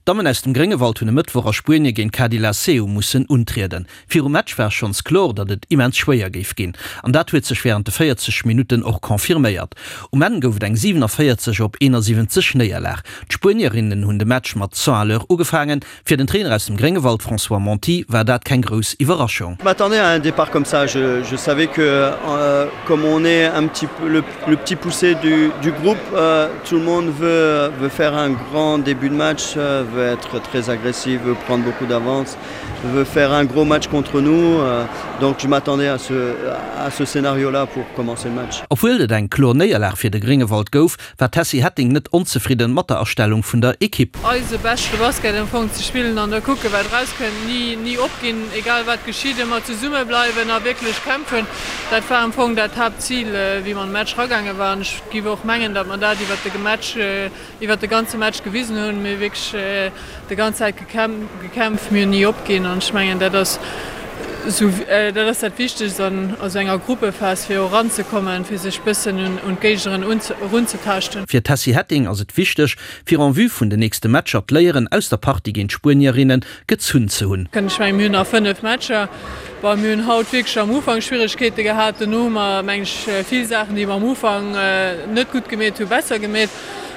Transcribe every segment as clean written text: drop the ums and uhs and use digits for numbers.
D'Dammen aus dem Gréngewald hunn e Mëttwoch a Spuenie géint Cadi La Seu mussen untrieden. Virum Match war schonns kloer, datt et immens schwéier géif ginn. An dat huet sech wärend de 40 Minutten och confirméiert. Um Enn gouf et eng 47 op 71 Néierlag. D'Spuenierinnen hunn de Match mat 100 à l'heure ugefaangen. Fir den Trainer aus dem Gréngewald François Monti war dat keng grouss Iwwerraschung. Je m'attendais à un départ comme ça, je, je savais que euh, comme on est un petit peu le, le petit poussé du, du groupe, euh, tout le monde veut, veut faire un grand début de match, euh, veut être très agressif, veut prendre beaucoup d'avance, veut faire un gros match contre nous. Euh, donc je m'attendais à ce, à ce scénario là pour commencer le match. Obwuel et eng kloer Néierlag fir de Gréngewald gouf, war d'Tessy Hetting net onzefridden mat der Astellung vun der Ekipp. Eise beschte Basket am Fong ze spillen an da kucken wat erauskënnt. Ni ni opginn, egal wat geschitt, ëmmer zesumme bleiwen a wierklech kämpfen. Dat war am Fong dat Haaptzil wéi mer an de Match ragaange waren. Ech giff och mengen, datt mer dat iwwert de Match iwwert de ganze Match gewisen hunn. Mir hu wierklech de ganz Zäit gekämpft, mir hunn ni opginn an ech mengen dat ass esou dat ass dat Wichtegst an esou enger Gruppephas fir och eranzekommen, fir sech bëssen un d'Géignerin erunzetaaschten. Fir d'Tessy Hetting ass et wichteg, fir en vue vun den nächste Matcher d'Léieren aus der Partie géint d'Spuenierinne gezunn ze hunn. Ech mengen mir hunn nach 5 Matcher. Bon, mir hunn haut wierklech am Ufank Schwieregkeete gehat, dono hu mer meng ech vill Saachen déi mer am Ufank net gutt gemeet hu besser gemeet.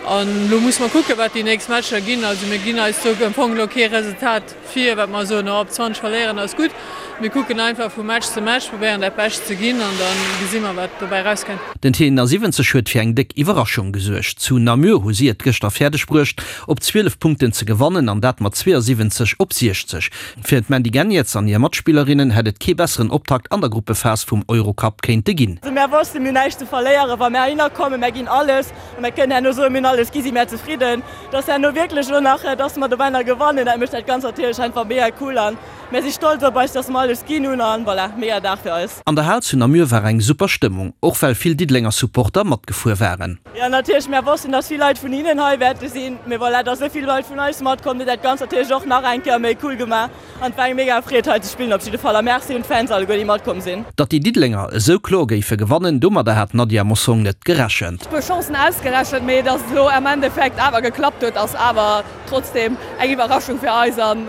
An elo musse mer kucken, wat déi nächst Matcher ginn. Also mir ginn eis do am Fong elo kee Resultat vir, wat mer soen, oh op 20 verléieren ass gutt. Mir kucken einfach vu Match zu Match, probéieren dat Bescht ze ginn an da gesi mer, wat dobäi erauskënnt. Den T71 huet fir eng déck Iwwerraschung gesuergt. Zu Namur hu si et gëschter fäerdeg bruecht, op 12 Punkten ze gewannen an dat mat 72 op 60. Fir d'Mandy Geniets an hir Matspillerinnen hätt et kee besseren Optakt an der Gruppephas vum Eurocup kéinte ginn. Mär wossten, mir hunn näischt ze verléieren, wa mär heihinner kommen. Mär ginn alles. A mär kënnen herno soen, mir hunn alles gi, si mär zefridden. Dass herno wierklech elo nach, dass mer dobäi nach gewannen, dat mécht dat Ganzt natierlech einfach mega cool an mär si stolz op eis, dass mer alles ginn hunn an voilà, mega Dag fir eis. An der Hal zu Namur war eng super Stëmmung, och well vill Diddelenger Supporter matgefuer waren. Jo natierlech, mär wossten, dass vill Leit vun hinnen hei wäerte sinn, mee voilà, dass esou vill Leit vun eis matkomm, huet dat Ganzt natierlech och nach eng Kéier méi cool gemaach. An et war eng mega Freed hei ze spillen op jidde Fall a Merci un d'Fans alleguer déi matkomm sinn. Datt déi Diddelenger esou kloer géife gewannen, domadder hat d'Nadia Mossong net gerechent. Puer Chancen ausgerechent, mee datt et elo am Endeffekt awer geklappt huet ass awer trotzdem eng Iwwerraschung fir eis an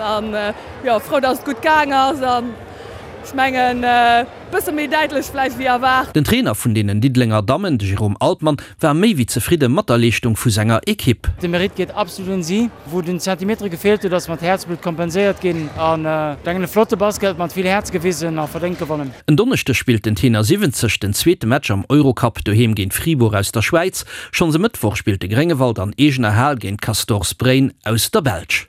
jo frou datt et gutt gaang ass an ech mengen bësse méi däitlech vläicht wéi erwaart. Den Trainer vun deenen Diddelenger Dammen, de Jérôme Altmann, war méi wéi zefridde mat der Leeschtung vu senger Ekipp. De Mérite geet absolut un si. Wou den Zentimetere gefeelt huet ass mat Häerzblutt kompenséiert ginn an denken e flotte Basket mat vill Häerz gewisen a verdéngt gewonnen. En Donneschdeg spillt den Tenor 70 den zweete Match am Eurocup doheem géint Fribourg aus der Schwäiz. Schonns e Mëttwoch spillt de Gréngewald an eegener Hal géint Castors Braine aus der Belsch.